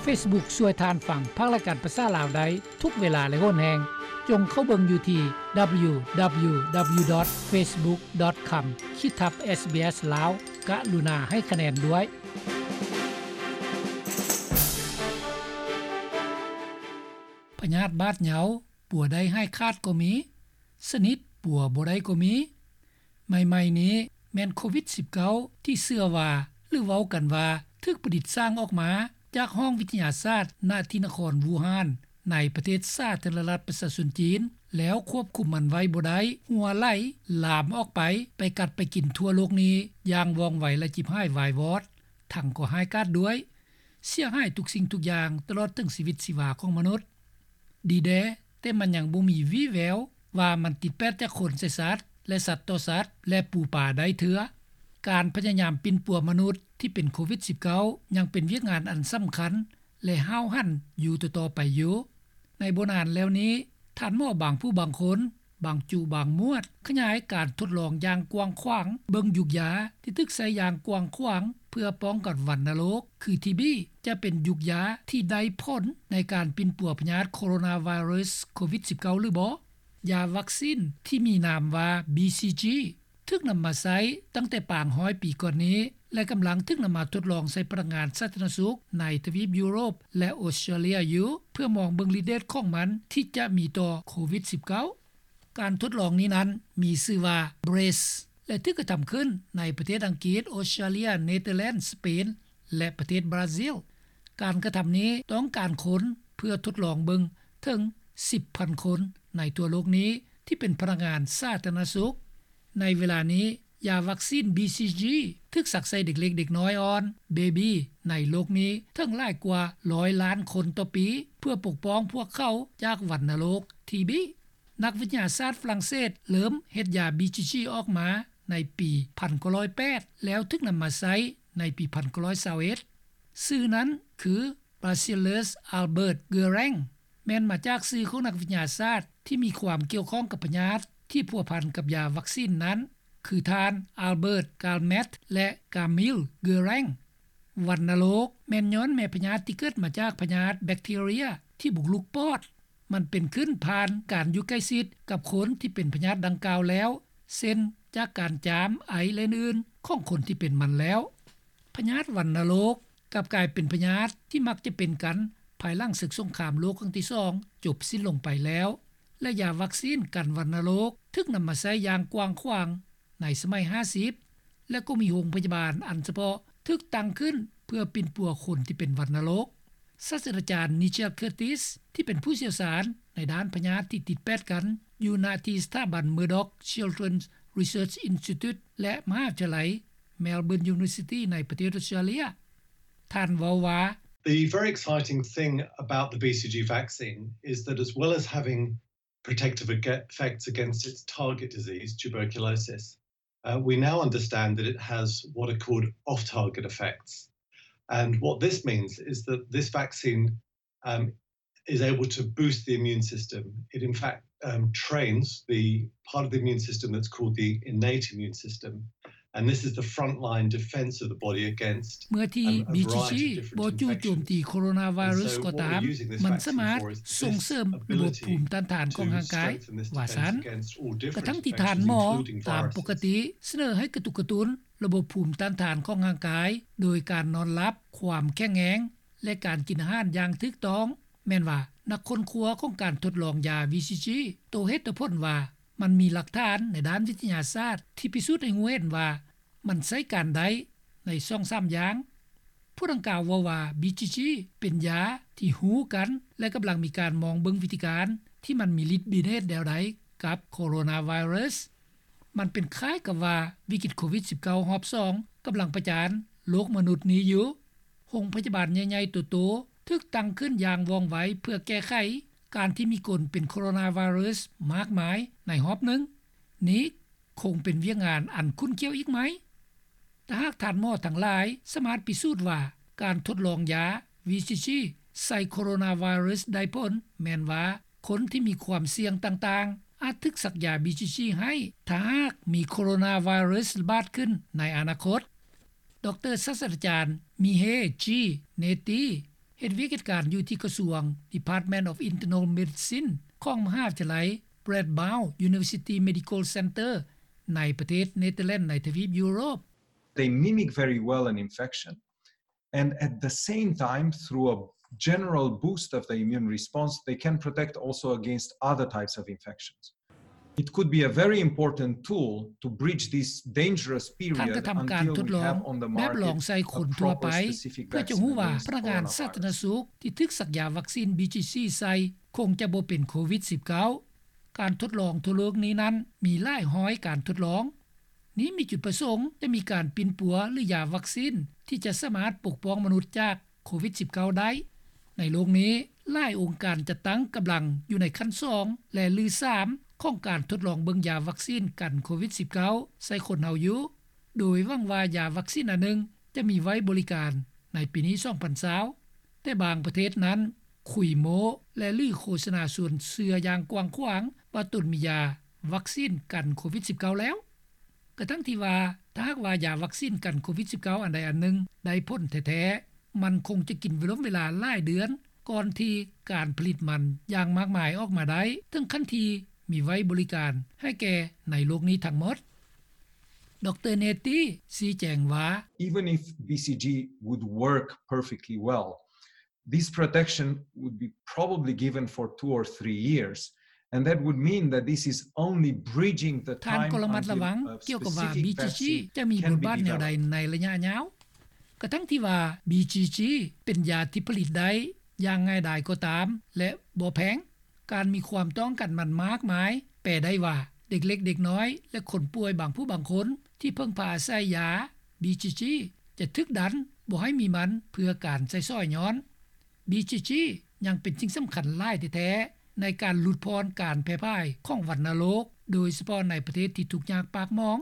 ເຟສບຸກ ຊ່ວຍທ່ານຟັງພາກລາຍການພາສາລາວໄດ້ທຸກເວລາ ແລະ ໂຫນແຮງ. ຈົ່ງເຂົ້າເບິ່ງຢູ່ທີ່ www.facebook.com/ sbs ລາວ. ກະລຸນາໃຫ້ຄະແນນດ້ວຍ. ພະຍາດບາດເຍົາ ປົວໄດ້ຫາຍຂາດກໍມີ, ສະໜິດປົວບໍ່ໄດ້ກໍມີ. ໃໝ່ໆນີ້ແມ່ນໂຄວິດສິບເກົ້າ ທີ່ເຊື່ອວ່າ ຫຼືເວົ້າກັນວ່າ ຖືກປະດິດສ້າງອອກມາຈາກຫ້ອງວິທະຍາສາດ ນະທີ່ນະຄອນວູຮານ ໃນປະເທດສາທາລະນະລັດປະຊາຊົນຈີນ ແລ້ວຄວບຄຸມມັນໄວ້ບໍ່ໄດ້ ຮົ່ວໄຫຼລາມອອກໄປ ໄປກັດໄປກິນທົ່ວໂລກນີ້ຢ່າງວ່ອງໄວ ແລະ ຈິບຫາຍວາຍວອດ, ທັງກໍຮ້າຍກາດດ້ວຍ, ເສຍຫາຍທຸກສິ່ງທຸກຢ່າງ ຕະຫຼອດເຖິງຊີວິດຊີວາຂອງມະນຸດ. ດີແດ່, ແຕ່ມັນຍັງບໍ່ມີວີ່ແວວວ່າມັນຕິດແປດຈາກຄົນໃສ່ສັດ ແລະ ສັດຕໍ່ສັດ ແລະ ປູປາໄດ້ເທື່ອ. ການພະຍາຍາມປິ່ນປົວມະນຸດທີ່ເປັນໂຄວິດສິບເກົ້າ ຍັງເປັນວຽກງານອັນສຳຄັນ ແລະ ຫ້າວຫັນຢູ່ຕໍ່ໆໄປຢູ່. ໃນບໍ່ນານແລ້ວນີ້, ທ່ານໝໍບາງຜູ້ບາງຄົນ, ບາງຈຸບາງໝວດ ຂະຫຍາຍການທົດລອງຢ່າງກວ້າງຂວາງເບິ່ງຢູກຢາທີ່ຖືກໃຊ້ຢ່າງກວ້າງຂວາງເພື່ອປ້ອງກັນວັນນະໂລກ ຄື ທີບີ ຈະເປັນຢູກຢາທີ່ໄດ້ຜົນໃນການປິ່ນປົວພະຍາດໂຄໂຣນາໄວຣັສໂຄວິດສິບເກົ້າ ຫຼືບໍ່. ຢາວັກຊີນທີ່ມີນາມວ່າ ບີຊີຈີ ຖືກນຳມາໃຊ້ຕັ້ງແຕ່ປາງຮ້ອຍປີກ່ອນນີ້ ແລະ ກຳລັງຖືກນຳມາທົດລອງໃສ່ພະນັກງານສາທາລະນະສຸກໃນທະວີບຢູໂຣບ ແລະ ອົດສະຕຣາເລຍຢູ່ ເພື່ອມອງເບິ່ງລິດເດດຂອງມັນທີ່ຈະມີຕໍ່ໂຄວິດສິບເກົ້າ. ການທົດລອງນີ້ນັ້ນມີຊື່ວ່າ ເບຣສ ແລະ ຖືກກະທຳຂຶ້ນໃນປະເທດອັງກິດ, ອົດສະຕຣາເລຍ, ເນເທີແລນ, ສະເປນ ແລະ ປະເທດບຣາຊິລ. ການກະທຳນີ້ຕ້ອງການຄົນເພື່ອທົດລອງເບິ່ງເຖິງສິບພັນຄົນໃນທົ່ວໂລກນີ້ ທີ່ເປັນພະນັກງານສາທາລະນະສຸກ. ໃນເວລານີ້, ຢາວັກຊີນ ບີຊີຈີ ຖືກສັກໃສ່ເດັກເລັກເດັກນ້ອຍອ່ອນ, ເບບີ ໃນໂລກນີ້ເຖິງຫຼາຍກວ່າຮ້ອຍລ້ານຄົນຕໍ່ປີ ເພື່ອປົກປ້ອງພວກເຂົາຈາກວັນນະໂລກ ທີບີ. ນັກວິທະຍາສາດຝຣັ່ງເສດເລີ່ມເຮັດຢາ ບີຊີຈີ ອອກມາໃນປີພັນເກົ້າຮ້ອຍແປດ ແລ້ວຖືກນຳມາໃຊ້ໃນປີພັນເກົ້າຮ້ອຍຊາວເອັດ. ຊື່ນັ້ນຄື Bacillus Albert Guérin ແມ່ນມາຈາກຊື່ຂອງນັກວິທະຍາສາດທີ່ມີຄວາມກ່ຽວຂ້ອງກັບພະຍາດທີ່ພົວພັນກັບຢາວັກຊີນນັ້ນ ຄືທ່ານ Albert Calmette ແລະ Camille Guérin. ວັນນະໂລກແມ່ນຍ້ອນແມ່ພະຍາດທີ່ເກີດມາຈາກພະຍາດແບັກທີເຣຍທີ່ບຸກລຸກປອດ. ມັນເປັນຂຶ້ນຜ່ານການຢູ່ໃກ້ຊິດກັບຄົນທີ່ເປັນພະຍາດດັ່ງກ່າວແລ້ວ ເຊັ່ນ ຈາກການຈາມ, ໄອ ແລະ ອື່ນໆ ຂອງຄົນທີ່ເປັນມັນແລ້ວ. ພະຍາດວັນນະໂລກກັບກາຍເປັນພະຍາດທີ່ມັກຈະເປັນກັນພາຍຫຼັງເສິກສົງຄາມໂລກຄັ້ງທີສອງຈົບສິ້ນລົງໄປແລ້ວ ແລະ ຢາວັກຊີນກັນວັນນະໂລກຖືກນຳມາໃຊ້ຢ່າງກວ້າງຂວາງໃນສະໄໝຫ້າສິບ ແລະ ກໍມີໂຮງພະຍາບານອັນສະເພາະຖືກຕັ້ງຂຶ້ນເພື່ອປິ່ນປົວຄົນທີ່ເປັນວັນນະໂລກ. ສາດສະດາຈານ Nigel Curtis ທີ່ເປັນຜູ້ຊ່ຽວຊານໃນດ້ານພະຍາດທີ່ຕິດແປດກັນ ຢູ່ນະທີ່ສະຖາບັນ Murdoch Children's Research Institute ແລະ ມະຫາວິທະຍາໄລ Melbourne University ໃນປະເທດອົດສະຕຣາເລຍ. ທ່ານເວົ້າວ່າ, The very exciting thing about the B C G vaccine is that as well as having protective ag- effects against its target disease, tuberculosis, uh, we now understand that it has what are called off-target effects. And what this means is that this vaccine, um, is able to boost the immune system. It, in fact, um, trains the part of the immune system that's called the innate immune system. And this is the frontline defense of the body against ເມື່ອທີ່ um, a ບີຈີຈີ ບໍ່ຈູ່ໂຈມຕີໂຄໂຣນາໄວຣັສກໍຕາມ, ມັນສາມາດສົ່ງເສີມລະບົບພູມຕ້ານທານຂອງຮ່າງກາຍ. ວ່າຊັ້ນ, ກະທັງທີ່ທ່ານໝໍຕາມປົກກະຕິສະເໜີໃຫ້ກະຕຸກກະຕຸ້ນລະບົບພູມຕ້ານທານຂອງຮ່າງກາຍ ໂດຍການນອນຫຼັບ, ຄວາມແຂງແຮງ ແລະ ການກິນອາຫານຢ່າງຖືກຕ້ອງ. ແມ່ນວ່ານັກຄົ້ນຄວ້າຂອງການທົດລອງຢາ ບີຊີຈີ ໂຕເຫດໂຕຜົນວ່າ ມັນມີຫຼັກຖານໃນດ້ານວິທະຍາສາດທີ່ພິສູດໃຫ້ຮູ້ເຫັນວ່າ ມັນໃຊ້ການໄດ້ໃນສອງສາມຢ່າງ. ຜູ້ດັ່ງກ່າວເວົ້າວ່າ ບີຈີຈີ ເປັນຢາທີ່ຮູ້ກັນ ແລະ ກຳລັງມີການມອງເບິ່ງວິທີການທີ່ມັນມີລິດມີເດດແນວໃດກັບໂຄໂຣນາໄວຣັສ. ມັນເປັນຄ້າຍກັບວ່າວິກິດໂຄວິດສິບເກົ້າຮອບສອງກຳລັງປະຈານໂລກມະນຸດນີ້ຢູ່. ໂຮງພະຍາບານໃຫຍ່ໆໂຕໆຖືກຕັ້ງຂຶ້ນຢ່າງວ່ອງໄວເພື່ອແກ້ໄຂການທີ່ມີຄົນເປັນໂຄໂຣນາໄວຣັສມາກມາຍໃນຮອບໜຶ່ງ. ນີ້ຄົງເປັນວຽກງານອັນຂຸ້ນຂ້ຽວອີກໃໝ່. ຖ້າຫາກທ່ານໝໍທັງຫຼາຍສາມາດພິສູດວ່າການທົດລອງຢາ ວີຊີຈີ ໃສ່ໂຄໂຣນາໄວຣັສໄດ້ຜົນ, ແມ່ນວ່າຄົນທີ່ມີຄວາມສ່ຽງຕ່າງໆອາດຖືກສັກຢາ ບີຈີຈີ ໃຫ້ ຖ້າຫາກມີໂຄໂຣນາໄວຣັສລະບາດຂຶ້ນໃນອະນາຄົດ. ດຣ ສາດສະດາຈານ ມີເຮ ຈີ ເນຕີ ເຮັດວຽກເຮັດການຢູ່ທີ່ກະຊວງ Department of Internal Medicine ຂອງມະຫາວິທະຍາໄລ Radboud University Medical Center ໃນປະເທດເນເທີແລນໃນທະວີບຢູໂຣບ. They mimic very well an infection, and at the same time, through a general boost of the immune response, they can protect also against other types of infections. It could be a very important tool to bridge this dangerous period ທ່ານກະທຳການທົດລອງແບບລອງໃສ່ຄົນທົ່ວໄປ ເພື່ອຈະຮູ້ວ່າພະນັກງານສາທາລະນະສຸກທີ່ຖືກສັກຢາວັກຊີນ BCG ໃສ່ຄົງຈະບໍ່ເປັນໂຄວິດ-19. ການທົດລອງທົ່ວໂລກນີ້ນັ້ນມີຫຼາຍຮ້ອຍການທົດລອງ. ນີ້ມີຈຸດປະສົງຈະມີການປິ່ນປົວ ຫຼື ຢາວັກຊີນທີ່ຈະສາມາດປົກປ້ອງມະນຸດຈາກໂຄວິດ-19 ໄດ້. ໃນໂລກນີ້ ຫຼາຍອົງການຈັດຕັ້ງກຳລັງຢູ່ໃນຂັ້ນສອງ ແລະ ຫຼື ສາມ ຂອງການທົດລອງເບິ່ງຢາວັກຊີນກັນໂຄວິດ-19 ໃສ່ຄົນເຮົາຢູ່ ໂດຍຫວັງວ່າຢາວັກຊີນອັນໜຶ່ງຈະມີໄວ້ບໍລິການໃນປີນີ້ 2020. ແຕ່ບາງປະເທດນັ້ນ ຄຸຍໂມ້ ແລະ ຫຼື ໂຄສະນາຊວນເຊື່ອຢ່າງກວ້າງຂວາງວ່າຕົນມີຢາວັກຊີນກັນໂຄວິດ-19 ແລ້ວ. ກະທັ່ງທີ່ວ່າ ຖ້າຫາກວ່າຢາວັກຊີນກັນໂຄວິດ-19 ອັນໃດອັນໜຶ່ງໄດ້ຜົນແທ້ໆ ມັນຄົງຈະກິນເວລາຫຼາຍເດືອນ ກ່ອນທີ່ການຜະລິດມັນຢ່າງມາກມາຍອອກມາໄດ້ ເຖິງຂັ້ນທີ່ມີໄວ້ບໍລິການໃຫ້ແກ່ໃນໂລກນີ້ທັງໝົດ. ດຣ Netty ຊີ້ແຈງວ່າ Even if BCG would work perfectly well, this protection would be probably given for two or three years, and that would mean that this is only bridging the time until a specific vaccine can be developed. ທ່ານກໍລະມັດລະວັງກ່ຽວກັບວ່າ BCG ຈະມີບົດບາດແນວໃດໃນໄລຍະຍາວ. ກະທັ່ງທີ່ວ່າ BCG ເປັນຢາທີ່ຜະລິດໄດ້ຢ່າງງ່າຍດາຍກໍຕາມ ແລະ ບໍ່ແພງ, ການມີຄວາມຕ້ອງການມັນມາກມາຍ ແປໄດ້ວ່າ ເດັກເລັກເດັກນ້ອຍ ແລະ ຄົນປ່ວຍບາງຜູ້ບາງຄົນທີ່ເພິ່ງພາອາໄສຢາ BCG ຈະຖືກດັນບໍ່ໃຫ້ມີມັນເພື່ອການໃຊ້ສອຍຍ້ອນ. BCG ຍັງເປັນສິ່ງສຳຄັນຫຼາຍແທ້ໆ ໃນການຫຼຸດຜ່ອນການແຜ່ພາຍຂອງວັນນະໂລກ ໂດຍສະເພາະໃນປະເທດທີ່ທຸກຍາກປາກໝອງ.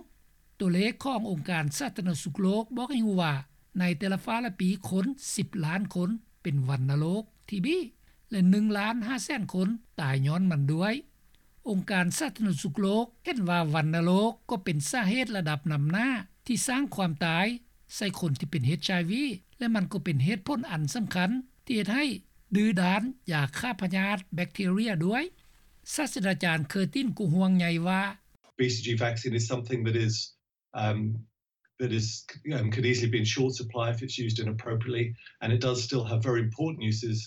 ຕົວເລກຂອງອົງການສາທາລະນະສຸກໂລກບອກໃຫ້ຮູ້ວ່າ ໃນແຕ່ລະຟ້າລະປີຄົນສິບລ້ານຄົນເປັນວັນນະໂລກ ທີບີ ແລະ ໜຶ່ງລ້ານຫ້າແສນຄົນຕາຍຍ້ອນມັນດ້ວຍ. ອົງການສາທາລະນະສຸກໂລກເຫັນວ່າວັນນະໂລກກໍເປັນສາເຫດລະດັບນຳໜ້າທີ່ສ້າງຄວາມຕາຍໃສ່ຄົນທີ່ເປັນ HIV ແລະ ມັນກໍເປັນເຫດຜົນອັນສຳຄັນທີ່ເຮັດໃຫ້ດື້ດ້ານຢາຂ້າພະຍາດແບັກທີເຣຍດ້ວຍ. ສາດສະດາຈານ Curtin ກໍຫ່ວງໃຍວ່າ BCG vaccine is something that is, um, that is, um, could easily be in short supply if it's used inappropriately, and it does still have very important uses,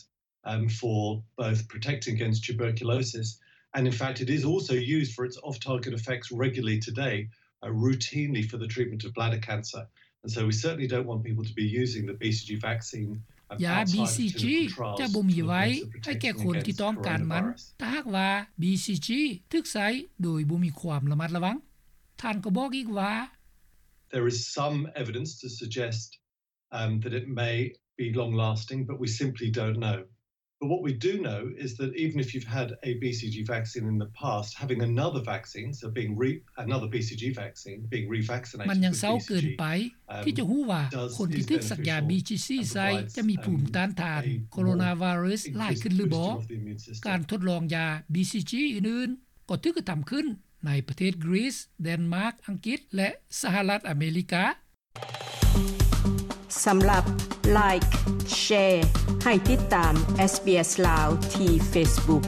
um, for both protecting against tuberculosis, and in fact, it is also used for its off-target effects regularly today, uh, routinely for the treatment of bladder cancer. And so we certainly don't want people to be using the BCG vaccine, um, ຢາ outside of BCG clinical trials ຈະບໍ່ມີໄວ້ໃຫ້ແກ່ຄົນທີ່ຕ້ອງການມັນ ຖ້າຫາກວ່າ BCG ຖືກໃຊ້ໂດຍບໍ່ມີຄວາມລະມັດລະວັງ. ທ່ານກໍບອກອີກວ່າ There is some evidence to suggest, um, that it may be long-lasting, but we simply don't know. But what we do know is that even if you've had a BCG vaccine in the past, having another vaccine, so being re-, another BCG vaccine, being revaccinated with BCG, um, ມັນຍັງເຊົ້າເກີນໄປທີ່ຈະຮູ້ວ່າຄົນທີ່ຖືກສັກຢາ BCG ໃສ່ຈະມີພູມຕ້ານທານໂຄໂຣນາໄວຣັສຫຼາຍຂຶ້ນຫຼືບໍ່. ການທົດລອງຢາ BCG ອື່ນໆ ກໍຖືກກະທຳຂຶ້ນໃນປະເທດກຣີສ, ແດນມາກ, ອັງກິດ ແລະ ສະຫະລັດອາເມລິກາ. ສຳລັບ Like, Share ໃຫ້ຕິດຕາມ SBS ລາວ ທີ່ Facebook.